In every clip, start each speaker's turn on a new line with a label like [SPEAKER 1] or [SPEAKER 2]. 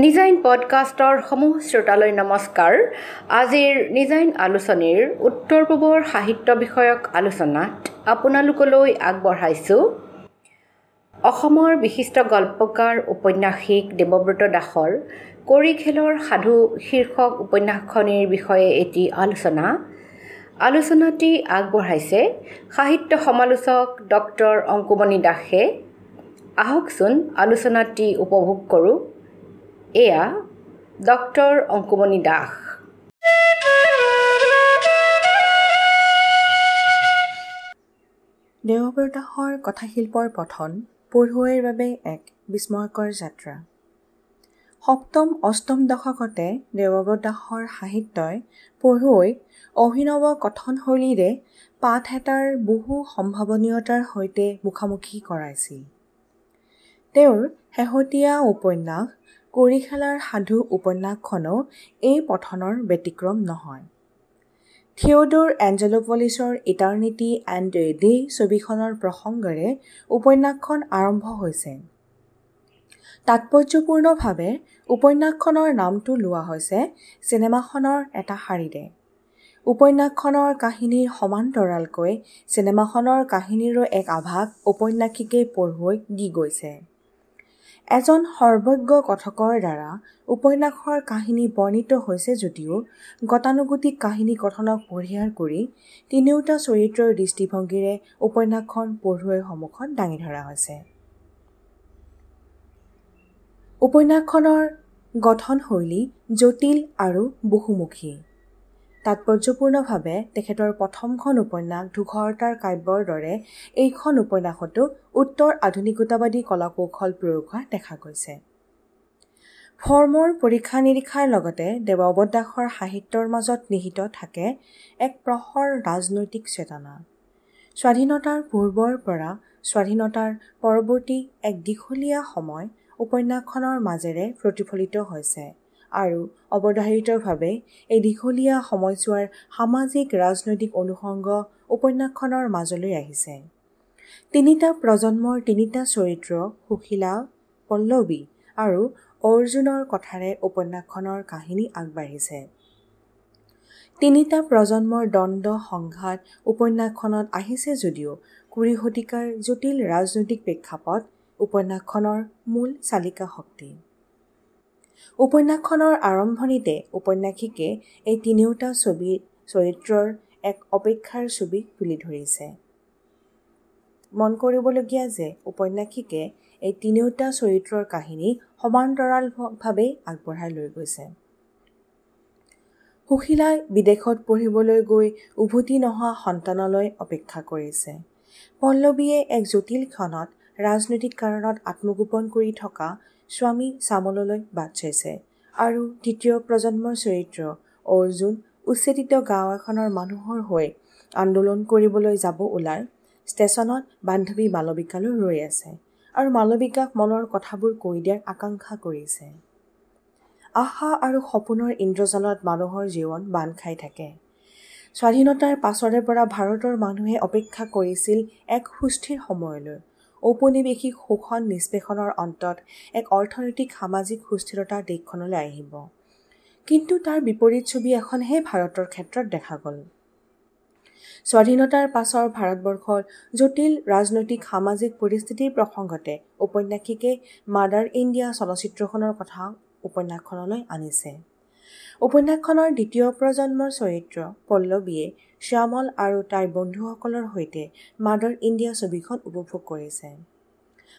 [SPEAKER 1] নিজাইন পডকাষ্টৰ সমূহ শ্ৰোতালৈ নমস্কাৰ। আজিৰ নিজাইন আলোচনীৰ উত্তৰ পূবৰ সাহিত্য বিষয়ক আলোচনাত আপোনালোকলৈ আগবঢ়াইছোঁ অসমৰ বিশিষ্ট গল্পকাৰ ঔপন্যাসিক দেৱব্ৰত দাসৰ কড়িখেলৰ সাধু শীৰ্ষক উপন্যাসখনিৰ বিষয়ে এটি আলোচনা। আলোচনাটি আগবঢ়াইছে সাহিত্য সমালোচক ডক্টৰ অংকুমণি দাসে। আহকচোন আলোচনাটি উপভোগ কৰোঁ। এয়া ডক্টৰ অংকুমণি দাস।
[SPEAKER 2] দেৱব্ৰত দাসৰ কথাশিল্পৰ পঠন পঢ়ুৱৈৰ বাবে এক বিস্ময়কৰ যাত্ৰা। সপ্তম অষ্টম দশকতে দেৱব্ৰত দাসৰ সাহিত্যই পঢ়ুৱৈক অভিনৱ কথনশৈলীৰে পাঠ এটাৰ বহু সম্ভাৱনীয়তাৰ সৈতে মুখামুখি কৰাইছিল। তেওঁৰ শেহতীয়া উপন্যাস কড়িখেলাৰ সাধু উপন্যাসখনো এই পঠনৰ ব্যতিক্ৰম নহয়। থিয়ডৰ এঞ্জেলোপলিছৰ ইটাৰনিটি এণ্ড এ ডে ছবিখনৰ প্ৰসংগেৰে উপন্যাসখন আৰম্ভ হৈছে। তাৎপৰ্যপূৰ্ণভাৱে উপন্যাসখনৰ নামটো লোৱা হৈছে চিনেমাখনৰ এটা শাৰীৰে। উপন্যাসখনৰ কাহিনীৰ সমান্তৰালকৈ চিনেমাখনৰ কাহিনীৰো এক আভাস ঔপন্যাসিকে পঢ়ুৱৈক দি গৈছে। এজন সৰ্বজ্ঞ কথকৰ দ্বাৰা উপন্যাসৰ কাহিনী বৰ্ণিত হৈছে যদিও গতানুগতিক কাহিনী কথনক পৰিহাৰ কৰি তিনিওটা চৰিত্ৰৰ দৃষ্টিভংগীৰে উপন্যাসখন পঢ়ুৱৈৰ সন্মুখত দাঙি ধৰা হৈছে। উপন্যাসখনৰ গঠনশৈলী জটিল আৰু বহুমুখী। তাৎপৰ্যপূৰ্ণভাৱে তেখেতৰ প্ৰথমখন উপন্যাস ধূসৰতাৰ কাব্যৰ দৰে এইখন উপন্যাসতো উত্তৰ আধুনিকতাবাদী কলাকৌশল প্ৰয়োগ হোৱা দেখা গৈছে। ফৰ্মৰ পৰীক্ষা নিৰীক্ষাৰ লগতে দেৱব্ৰত দাসৰ সাহিত্যৰ মাজত নিহিত থাকে এক প্ৰখৰ ৰাজনৈতিক চেতনা। স্বাধীনতাৰ পূৰ্বৰ পৰা স্বাধীনতাৰ পৰৱৰ্তী এক দীঘলীয়া সময় উপন্যাসখনৰ মাজেৰে প্ৰতিফলিত হৈছে আৰু অৱধাৰিতভাৱে এই দীঘলীয়া সময়ছোৱাৰ সামাজিক ৰাজনৈতিক অনুষংগ উপন্যাসখনৰ মাজলৈ আহিছে। তিনিটা প্ৰজন্মৰ তিনিটা চৰিত্ৰ সুশীলা, পল্লৱী আৰু অৰ্জুনৰ কথাৰে উপন্যাসখনৰ কাহিনী আগবাঢ়িছে। তিনিটা প্ৰজন্মৰ দ্বন্দ্ব সংঘাত উপন্যাসখনত আহিছে যদিও 20 শতিকাৰ জটিল ৰাজনৈতিক প্ৰেক্ষাপট উপন্যাসখনৰ মূল চালিকা শক্তি। উপন্যাসখনৰ আৰম্ভণিতে ঔপন্যাসিকে এই তিনিওটা ছবিৰ চৰিত্ৰৰ এক অপেক্ষাৰ ছবি তুলি ধৰিছে। মন কৰিবলগীয়া যে ঔপন্যাসিকে এই তিনিওটা চৰিত্ৰৰ কাহিনী সমান্তৰালভাৱে আগবঢ়াই লৈ গৈছে। সুশীলাই বিদেশত পঢ়িবলৈ গৈ উভতি নহা সন্তানলৈ অপেক্ষা কৰিছে। পল্লৱীয়ে এক জটিল ক্ষণত ৰাজনৈতিক কাৰণত আত্মগোপন কৰি থকা স্বামী শ্যামললৈ বাট চাইছে আৰু তৃতীয় প্ৰজন্মৰ চৰিত্ৰ অৰ্জুন উচ্ছেদিত গাঁও এখনৰ মানুহৰ হৈ আন্দোলন কৰিবলৈ যাব ওলাই ষ্টেচনত বান্ধৱী মালবিকালৈ ৰৈ আছে আৰু মালবিকাক মনৰ কথাবোৰ কৈ দিয়াৰ আকাংক্ষা কৰিছে। আশা আৰু সপোনৰ ইন্দ্ৰজালত মানুহৰ জীৱন বান্ধ খাই থাকে। স্বাধীনতাৰ পাছৰে পৰা ভাৰতৰ মানুহে অপেক্ষা কৰিছিল এক সুস্থিৰ সময়লৈ। ঔপনিৱেশিক শোষণ নিষ্পেষণৰ অন্তত এক অৰ্থনৈতিক সামাজিক সুস্থিৰতা দেশখনলৈ আহিব। কিন্তু তাৰ বিপৰীত ছবি এখনহে ভাৰতৰ ক্ষেত্ৰত দেখা গ'ল। স্বাধীনতাৰ পাছৰ ভাৰতবৰ্ষৰ জটিল ৰাজনৈতিক সামাজিক পৰিস্থিতিৰ প্ৰসংগতে ঔপন্যাসিকে মাদাৰ ইণ্ডিয়া চলচ্চিত্ৰখনৰ কথা উপন্যাসখনলৈ আনিছে। উপন্যাসখনৰ দ্বিতীয় প্ৰজন্মৰ চৰিত্ৰ পল্লৱীয়ে শ্যামল আৰু তাইৰ বন্ধুসকলৰ সৈতে মাদাৰ ইণ্ডিয়া ছবিখন উপভোগ কৰিছে।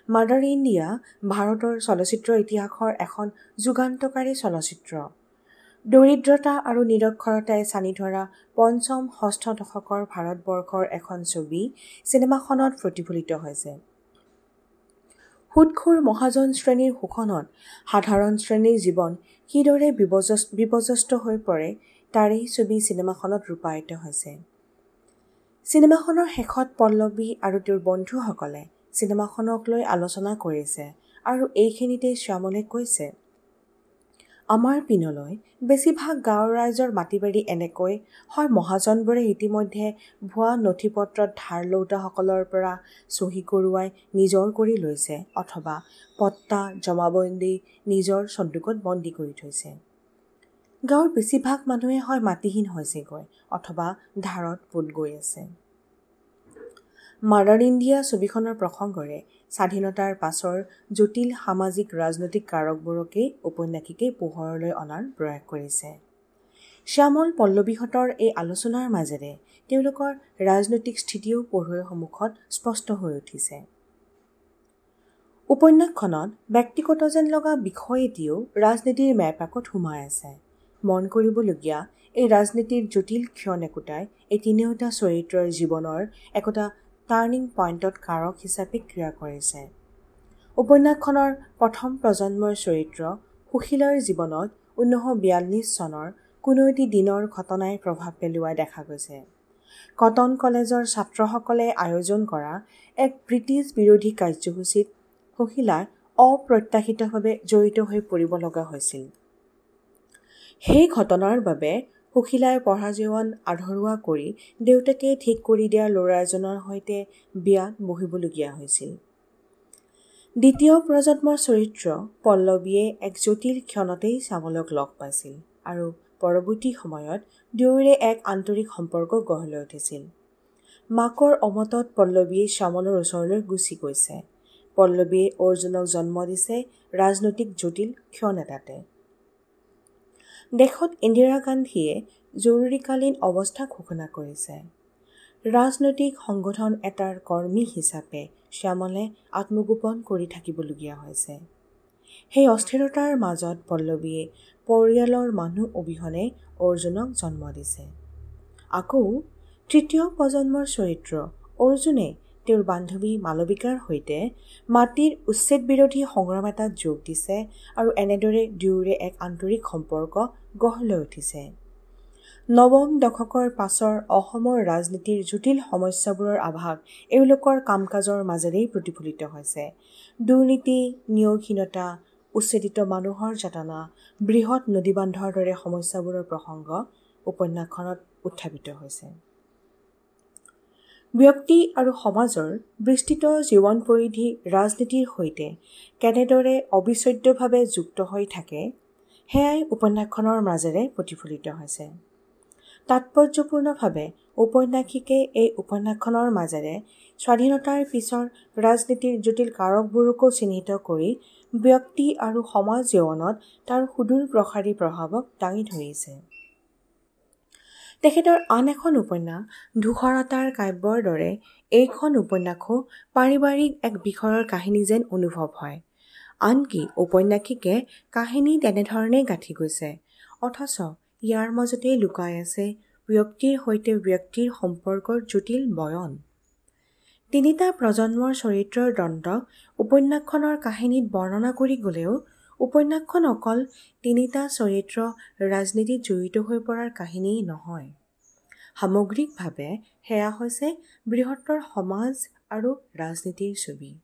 [SPEAKER 2] মাদাৰ ইণ্ডিয়া ভাৰতৰ চলচ্চিত্ৰ ইতিহাসৰ এখন যুগান্তকাৰী চলচ্চিত্ৰ। দৰিদ্ৰতা আৰু নিৰক্ষৰতাই ছানি ধৰা পঞ্চম ষষ্ঠ দশকৰ ভাৰতবৰ্ষৰ এখন ছবি চিনেমাখনত প্ৰতিফলিত হৈছে। সুদখোৰ মহাজন শ্ৰেণীৰ শোষণত সাধাৰণ শ্ৰেণীৰ জীৱন কিদৰে বিপৰ্যস্ত হৈ পৰে তাৰেই ছবি চিনেমাখনত ৰূপায়িত হৈছে। চিনেমাখনৰ শেষত পল্লৱী আৰু তেওঁৰ বন্ধুসকলে চিনেমাখনক লৈ আলোচনা কৰিছে আৰু এইখিনিতে শ্যামলে কৈছে, আমাৰ পিনলৈ বেছিভাগ গাঁৱৰ ৰাইজৰ মাটি-বাৰী এনেকৈ হয় মহাজনবোৰে ইতিমধ্যে ভুৱা নথি-পত্ৰত ধাৰ লওঁতাসকলৰ পৰা চহী কৰোৱাই নিজৰ কৰি লৈছে অথবা পট্টা জমাবন্দী নিজৰ চন্দুকত বন্দী কৰি থৈছে। গাঁৱৰ বেছিভাগ মানুহে হয় মাটিহীন হৈছেগৈ অথবা ধাৰত পোত গৈ আছে। মাদাৰ ইণ্ডিয়া ছবিখনৰ প্ৰসংগৰে স্বাধীনতাৰ পাছৰ জটিল সামাজিক ৰাজনৈতিক কাৰকবোৰকেই ঔপন্যাসিকে পোহৰলৈ অনাৰ প্ৰয়াস কৰিছে। শ্যামল পল্লৱীহঁতৰ এই আলোচনাৰ মাজেৰে তেওঁলোকৰ ৰাজনৈতিক স্থিতিও পঢ়ুৱৈৰ সন্মুখত স্পষ্ট হৈ উঠিছে। উপন্যাসখনত ব্যক্তিগত যেন লগা বিষয় এটিও ৰাজনীতিৰ মেৰপাকত সোমাই আছে। মন কৰিবলগীয়া এই ৰাজনীতিৰ জটিল ক্ষণ একোটাই এই তিনিওটা চৰিত্ৰৰ জীৱনৰ একোটা টাৰ্ণিং পইণ্টত কাৰক হিচাপে ক্ৰিয়া কৰিছে। উপন্যাসখনৰ প্ৰথম প্ৰজন্মৰ চৰিত্ৰ সুশীলাৰ জীৱনত 1942 চনৰ কোনো এটি দিনৰ ঘটনাই প্ৰভাৱ পেলোৱা দেখা গৈছে। কটন কলেজৰ ছাত্ৰসকলে আয়োজন কৰা এক ব্ৰিটিছ বিৰোধী কাৰ্যসূচীত সুশীলা অপ্ৰত্যাশিতভাৱে জড়িত হৈ পৰিব লগা হৈছিল। সেই ঘটনাৰ বাবে সুশীলাই পঢ়া জীৱন আধৰুৱা কৰি দেউতাকে ঠিক কৰি দিয়া ল'ৰা এজনৰ সৈতে বিয়াত বহিবলগীয়া হৈছিল। দ্বিতীয় প্ৰজন্মৰ চৰিত্ৰ পল্লৱীয়ে এক জটিল ক্ষণতেই শ্যামলক লগ পাইছিল আৰু পৰৱৰ্তী সময়ত দুয়োৰে এক আন্তৰিক সম্পৰ্ক গঢ় লৈ উঠিছিল। মাকৰ অমতত পল্লৱীয়ে শ্যামলৰ ওচৰলৈ গুচি গৈছে। পল্লৱীয়ে অৰ্জুনক জন্ম দিছে ৰাজনৈতিক জটিল ক্ষণ এটাতে। দেশত ইন্দিৰা গান্ধীয়ে জৰুৰীকালীন অৱস্থা ঘোষণা কৰিছে। ৰাজনৈতিক সংগঠন এটাৰ কৰ্মী হিচাপে শ্যামলে আত্মগোপন কৰি থাকিবলগীয়া হৈছে। সেই অস্থিৰতাৰ মাজত পল্লৱীয়ে পৰিয়ালৰ মানুহ অবিহনে অৰ্জুনক জন্ম দিছে। আকৌ তৃতীয় প্ৰজন্মৰ চৰিত্ৰ অৰ্জুনে তেওঁৰ বান্ধৱী মালবিকাৰ সৈতে মাটিৰ উচ্ছেদ বিৰোধী সংগ্ৰাম এটাত যোগ দিছে আৰু এনেদৰে দুয়োৰে এক আন্তৰিক সম্পৰ্ক গঢ় লৈ উঠিছে। নৱম দশকৰ পাছৰ অসমৰ ৰাজনীতিৰ জটিল সমস্যাবোৰৰ আভাস এওঁলোকৰ কাম কাজৰ মাজেৰেই প্ৰতিফলিত হৈছে। দুৰ্নীতি, নিয়োগহীনতা, উচ্ছেদিত মানুহৰ যাতনা, বৃহৎ নদীবান্ধৰ দৰে সমস্যাবোৰৰ প্ৰসংগ উপন্যাসখনত উত্থাপিত হৈছে। ব্যক্তি আৰু সমাজৰ বিস্তৃত জীৱন পৰিধি ৰাজনীতিৰ সৈতে কেনেদৰে অবিচ্ছেদ্যভাৱে যুক্ত হৈ থাকে সেয়াই উপন্যাসখনৰ মাজেৰে প্ৰতিফলিত হৈছে। তাৎপৰ্যপূৰ্ণভাৱে ঔপন্যাসিকে এই উপন্যাসখনৰ মাজেৰে স্বাধীনতাৰ পিছৰ ৰাজনীতিৰ জটিল কাৰকবোৰকো চিহ্নিত কৰি ব্যক্তি আৰু সমাজ জীৱনত তাৰ সুদূৰ প্ৰসাৰী প্ৰভাৱক দাঙি ধৰিছে। তেখেতৰ আন এখন উপন্যাস ধূসৰতাৰ কাব্যৰ দৰে এইখন উপন্যাসো পাৰিবাৰিক এক বিষয়ৰ কাহিনী যেন অনুভৱ হয়। আনকি ঔপন্যাসিকে কাহিনী তেনেধৰণেই গাঁঠি গৈছে, অথচ ইয়াৰ মাজতেই লুকাই আছে ব্যক্তিৰ সৈতে ব্যক্তিৰ সম্পৰ্কৰ জটিল বয়ন। তিনিটা প্ৰজন্মৰ চৰিত্ৰৰ দ্বন্দ্ব উপন্যাসখনৰ কাহিনীত বৰ্ণনা কৰি গ'লেও উপন্যাসখন অকল তিনিটা চৰিত্ৰ ৰাজনীতিত জড়িত হৈ পৰাৰ কাহিনীয়েই নহয়, সামগ্ৰিকভাৱে সেয়া হৈছে বৃহত্তৰ সমাজ আৰু ৰাজনীতিৰ ছবি।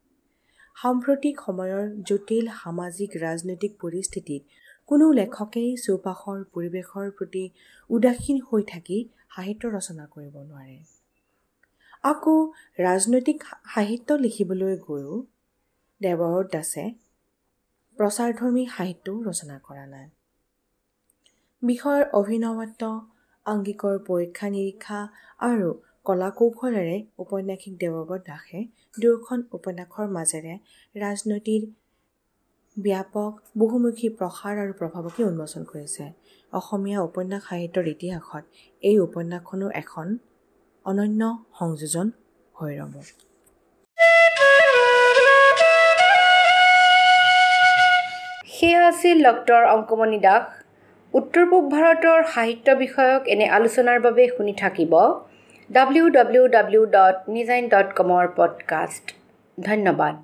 [SPEAKER 2] সাম্প্ৰতিক সময়ৰ জটিল সামাজিক ৰাজনৈতিক পৰিস্থিতিত কোনো লেখকেই চৌপাশৰ পৰিৱেশৰ প্ৰতি উদাসীন হৈ থাকি সাহিত্য ৰচনা কৰিব নোৱাৰে। আকৌ ৰাজনৈতিক সাহিত্য লিখিবলৈ গৈও দেৱব্ৰত দাসে প্ৰচাৰধৰ্মী সাহিত্যও ৰচনা কৰা নাই। বিষয়ৰ অভিনৱত্ব, আংগিকৰ পৰীক্ষা নিৰীক্ষা আৰু কলা কৌশলেৰে ঔপন্যাসিক দেৱব্ৰত দাসে দুয়োখন উপন্যাসৰ মাজেৰে ৰাজনীতিৰ ব্যাপক বহুমুখী প্ৰসাৰ আৰু প্ৰভাৱকে উন্মোচন কৰিছে। অসমীয়া উপন্যাস সাহিত্যৰ ইতিহাসত এই উপন্যাসখনো এখন অনন্য সংযোজন হৈ ৰ'ব।
[SPEAKER 1] সেয়া আছিল ডক্টৰ অংকুমণি দাস। উত্তৰ পূব ভাৰতৰ সাহিত্য বিষয়ক এনে আলোচনাৰ বাবে শুনি থাকিব www.nijain.com পডকাষ্ট। ধন্যবাদ।